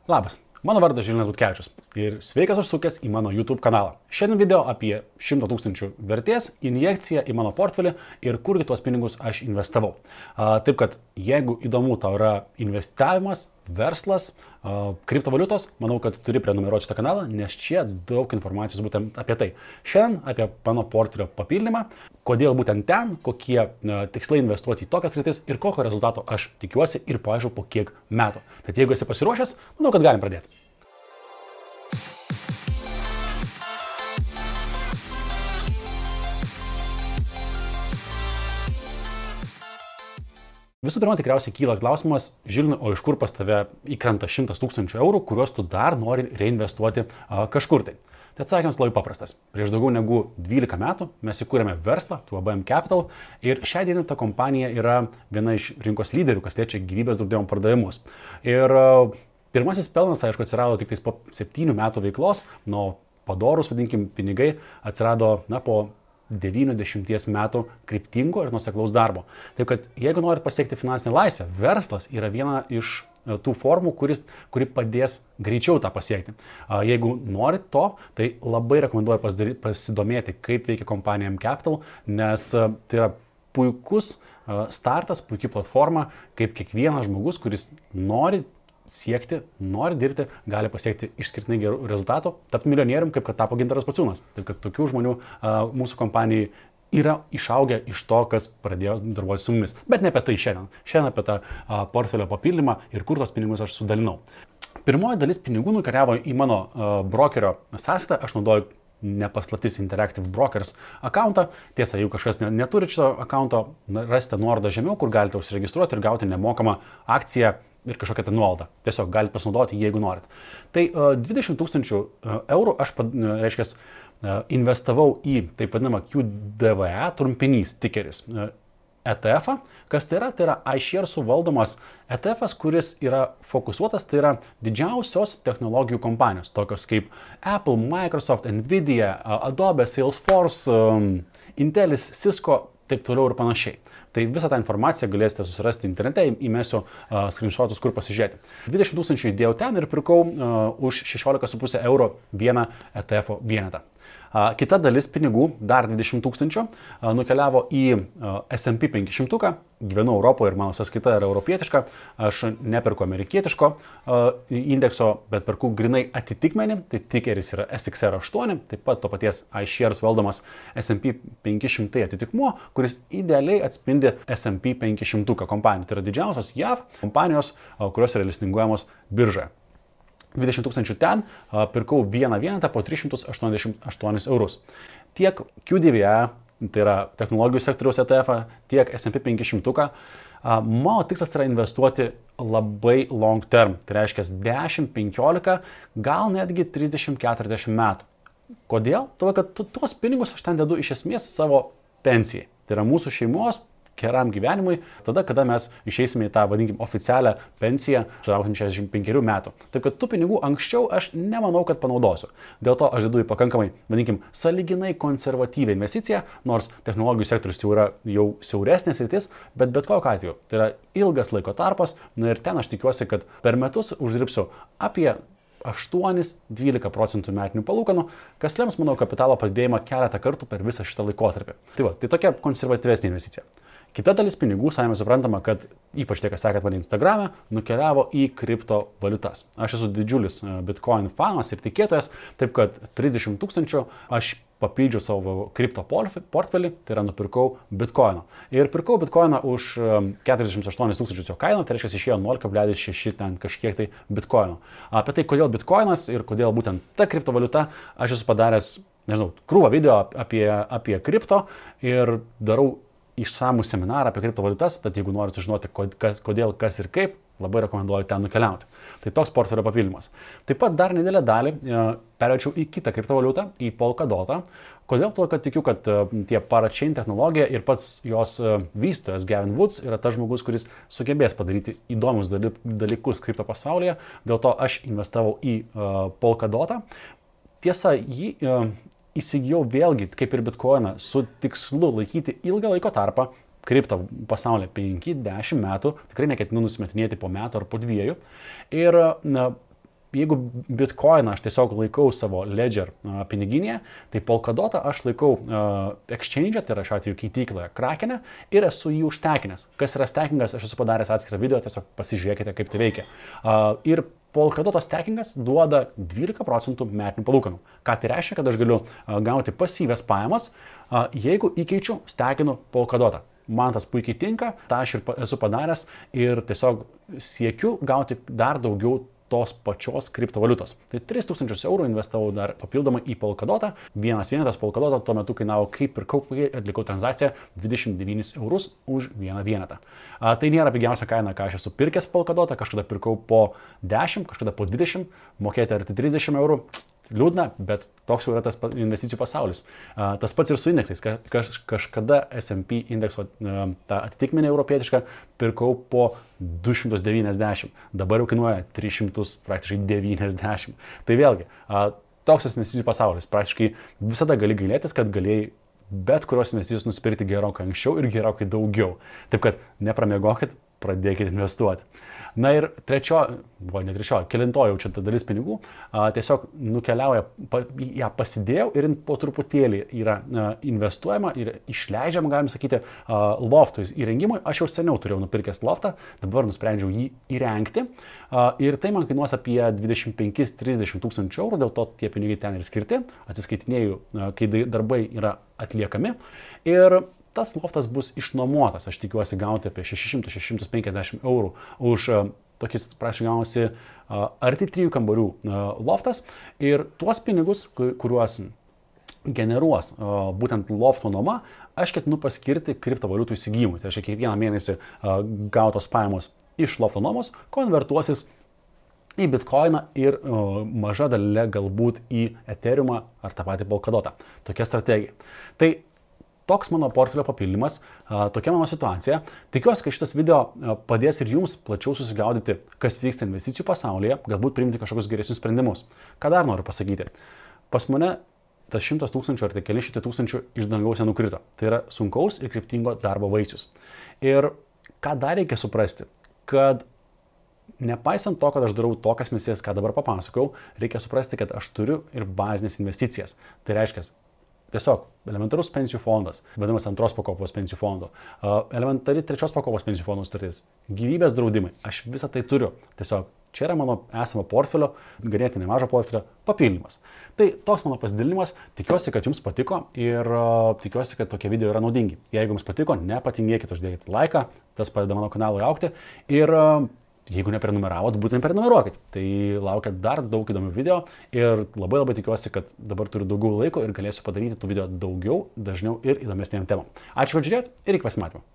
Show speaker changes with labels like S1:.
S1: Labas, mano vardas Žilvinas Butkevičius ir sveikas užsukęs į mano YouTube kanalą. Šiandien video apie 100 000 vertės injekciją į mano portfelį ir kurgi tuos pinigus aš investavau. Taip kad jeigu įdomu tau yra investavimas, verslas, kriptovaliutos, manau, kad turi prenumeruoti šitą kanalą, nes čia daug informacijos būtent apie tai. Šiandien apie mano portfelio papildymą, kodėl būtent ten, kokie tikslai investuoti į tokias sritis ir kokio rezultato aš tikiuosi ir paaišku po kiek metų. Tad jeigu esi pasiruošęs, manau, kad galim pradėti. Visų pirma, tikriausiai kyla klausimas, Žilvinai, o iš kur pas tave įkrenta 100 000 eurų, kuriuos tu dar nori reinvestuoti kažkur tai? Tai atsakymas labai paprastas. Prieš daugiau negu 12 metų mes įkūrėme verslą, ABM Capital, ir šią dieną ta kompanija yra viena iš rinkos lyderių, kas liečia gyvybės draudimo pardavimus. Ir pirmasis pelnas, aišku, atsirado tik po 7 metų veiklos, nuo padorus, vadinkim, pinigai atsirado po 90 metų kryptingo ir nuoseklaus darbo. Taip kad jeigu norit pasiekti finansinę laisvę, verslas yra viena iš tų formų, kuri padės greičiau tą pasiekti. Jeigu norit to, tai labai rekomenduoju pasidomėti, kaip veikia kompanija ABM Capital, nes tai yra puikus startas, puikia platforma, kaip kiekvienas žmogus, kuris nori siekti, nori dirbti, gali pasiekti išskirtinai gerų rezultatų, tapti milijonierium, kaip kad tapo Gintaras Pociūnas. Taip kad tokių žmonių mūsų kompanijai yra išaugę iš to, kas pradėjo darbuoti su mumis. Bet ne apie tai šiandien. Šiandien apie tą portfelio papildymą ir kur tos pinigus aš sudalinau. Pirmoji dalis pinigų nukeliavo į mano brokerio sąskaitą. Aš naudoju nepaslaptis Interactive Brokers akauntą. Tiesa, jeigu kažkas neturi šito akaunto, rasite nuorodą žemiau, kur galite užsiregistruoti ir gauti nemokamą akciją ir kažkokią nuolaidą. Tiesiog galite pasinaudoti, jeigu norit. Tai 20 000 eurų aš, investavau į taip vadinamą QDVE, trumpinys, tikeris, ETF-ą. Kas tai yra? Tai yra iShares'ų valdomas ETF-as, kuris yra fokusuotas, tai yra didžiausios technologijų kompanijos, tokios kaip Apple, Microsoft, Nvidia, Adobe, Salesforce, Intelis, Cisco, taip toliau ir panašiai. Tai visą tą informaciją galėsite susirasti internete, įmesiu screenshotus, kur pasižiūrėti. 20 000 įdėjau ten ir pirkau už 16,5 eurų vieną ETF vienetą. Kita dalis pinigų, dar 20 000, nukeliavo į S&P 500, gyvenu Europoje ir mano sąskaita yra europietiška, aš neperku amerikietiško indekso, bet perku grinai atitikmenį, tai tikeris yra SXR8, taip pat to paties iShares valdomas S&P 500 atitikmuo, kuris idealiai atspindi S&P 500 kompanijų. Tai yra didžiausios JAV kompanijos, kurios yra listinguojamos biržoje. 20 000 ten, pirkau vieną vienetą po 388 eurus. Tiek QDVE, tai yra technologijų sektoriaus ETF, tiek S&P 500, mano tikslas yra investuoti labai long term, tai reiškia 10, 15, gal netgi 30-40 metų. Kodėl? Todėl, kad tuos pinigus aš ten dedu iš esmės savo pensijai. Tai yra mūsų šeimos geram gyvenimui, tada, kada mes išeisime į tą, vadinkim, oficialią pensiją, sulauksim 65 metų. Taip kad tų pinigų anksčiau aš nemanau, kad panaudosiu. Dėl to aš dedu į pakankamai, vadinkim, sąlyginai konservatyvią investiciją, nors technologijų sektorius jau yra jau siauresnės sritis, bet kokiu atveju. Tai yra ilgas laiko tarpas, ir ten aš tikiuosi, kad per metus uždirbsiu apie 8-12% metinių palūkanų, kas lems mano kapitalo padidėjimą keletą kartų per visą šitą laikotarpį. Tai tokia konservatyvesnė investicija. Kita dalis pinigų, savime suprantama, kad ypač tie, kas sekėt mane Instagram'e, nukeliavo į kriptovaliutas. Aš esu didžiulis Bitcoin fanas ir tikėtojas, taip kad 30 000 aš papildžiau savo kripto portfelį, tai yra nupirkau Bitcoino. Ir pirkau Bitcoiną už 48 000 jo kainą, tai reiškia išėjo 0,6 ten kažkiek tai Bitcoino. Apie tai, kodėl Bitcoinas ir kodėl būtent ta kriptovaliuta, aš esu padaręs, nežinau, krūvą video apie kripto ir darau išsamų seminarą apie kriptovaliutas, tad jeigu norite žinoti, kodėl, kas ir kaip, labai rekomenduoju ten nukeliauti. Tai toks portfelio papildymas. Taip pat dar nedidelę dalį perėčiau į kitą kriptovaliutą, į Polkadotą. Kodėl? Todėl, kad tikiu, kad tie parachain technologija ir pats jos vystytojas Gavin Woods yra tas žmogus, kuris sugebės padaryti įdomius dalykus kripto pasaulyje. Dėl to aš investavau į Polkadotą. Tiesa, jį įsigijau vėlgi, kaip ir Bitcoiną, su tikslu laikyti ilgą laiko tarpą, kripto pasaulyje 5-10 metų, tikrai neketinu nusimetinėti po metų ar po 2. Ir jeigu Bitcoiną aš tiesiog laikau savo Ledger piniginėje, tai Polkadotą aš laikau exchange, tai yra šiuo atveju keitykloje Krakene ir esu jį užtekinęs. Kas yra stakingas, aš esu padaręs atskirą video, tiesiog pasižiūrėkite, kaip tai veikia. Ir Polkadoto stakingas duoda 12% metinių palūkanų. Ką tai reiškia, kad aš galiu gauti pasyvias pajamas, jeigu įkeičiu, stakinu Polkadotą. Man tas puikiai tinka, tą aš ir esu padaręs ir tiesiog siekiu gauti dar daugiau tos pačios kriptovaliutos. Tai 3000 eurų investavau dar papildomai į Polkadotą. Vienas vienetas Polkadoto tuo metu kainavo, kaip pirkau, kai atlikau tranzakciją, 29 eurus už vieną vienetą. Tai nėra pigiausia kaina, ką aš esu pirkęs Polkadotą, kažkada pirkau po 10, kažkada po 20, mokėti arti 30 eurų. Liūdna, bet toks jau yra tas investicijų pasaulis. Tas pats ir su indeksais. Kažkada S&P indekso tą atitikmenį europietišką pirkau po 290. Dabar jau kainuoja 300, praktiškai 90. Tai vėlgi, toks investicijų pasaulis. Praktiškai visada gali gailėtis, kad galėjai bet kurios investicijos nusipirkti gerokai anksčiau ir gerokai daugiau. Taip kad nepramiegokit, pradėkite investuoti. Na ir kelintoji jau čia ta dalis pinigų, tiesiog nukeliauja, ją pasidėjau ir po truputėlį yra investuojama ir išleidžiama, galim sakyti, loftų įrengimui. Aš jau seniau turėjau nupirkęs loftą, dabar nusprendžiau jį įrengti ir tai man kainuos apie 25-30 tūkstančių eurų, dėl to tie pinigai ten ir skirti, atsiskaitinėjau, kai darbai yra atliekami ir tas loftas bus išnuomotas. Aš tikiuosi gauti apie 600-650 eurų už tokis, prašau, gaunasi arti 3 kambarių loftas ir tuos pinigus, kuriuos generuos būtent lofto nuoma, aš ketinu paskirti kriptovaliutų įsigijimui. Tai reiškia, kiekvieną mėnesį gautos pajamos iš lofto nuomos konvertuosis į Bitcoiną ir maža dalelė galbūt į Ethereumą ar tą patį Polkadotą. Tokia strategija. Tai toks mano portfelio papildymas, tokia mano situacija. Tikiuosi, kad šitas video padės ir jums plačiau susigaudyti, kas vyksta investicijų pasaulyje, galbūt priimti kažkokius geresnius sprendimus. Ką dar noriu pasakyti? Pas mane tas 100 tūkstančių ar tai keli šimtai tūkstančių iš dangaus nenukrito. Tai yra sunkaus ir kryptingo darbo vaisius. Ir ką dar reikia suprasti, kad nepaisant to, kad aš darau tokias investicijas, ką dabar papasakau, reikia suprasti, kad aš turiu ir bazinės investicijas. Tai reiškia, tiesiog elementarus pensijų fondas, vadinamas antros pakopos pensijų fondo, elementari trečios pakopos pensijų fondų sutartis, gyvybės draudimai. Aš visą tai turiu. Tiesiog čia yra mano esamo portfelio, ganėtinai mažo portfelio papildymas. Tai toks mano pasidalinimas. Tikiuosi, kad jums patiko ir tikiuosi, kad tokie video yra naudingi. Jeigu jums patiko, nepatingėkite, uždėkite laiką, tas padeda mano kanalui augti. Ir jeigu neprenumeravot, būtent prenumeruokit. Tai laukia dar daug įdomių video ir labai tikiuosi, kad dabar turiu daugiau laiko ir galėsiu padaryti tų video daugiau, dažniau ir įdomesnėm temom. Ačiū, kad žiūrėjot ir iki pasimatymo.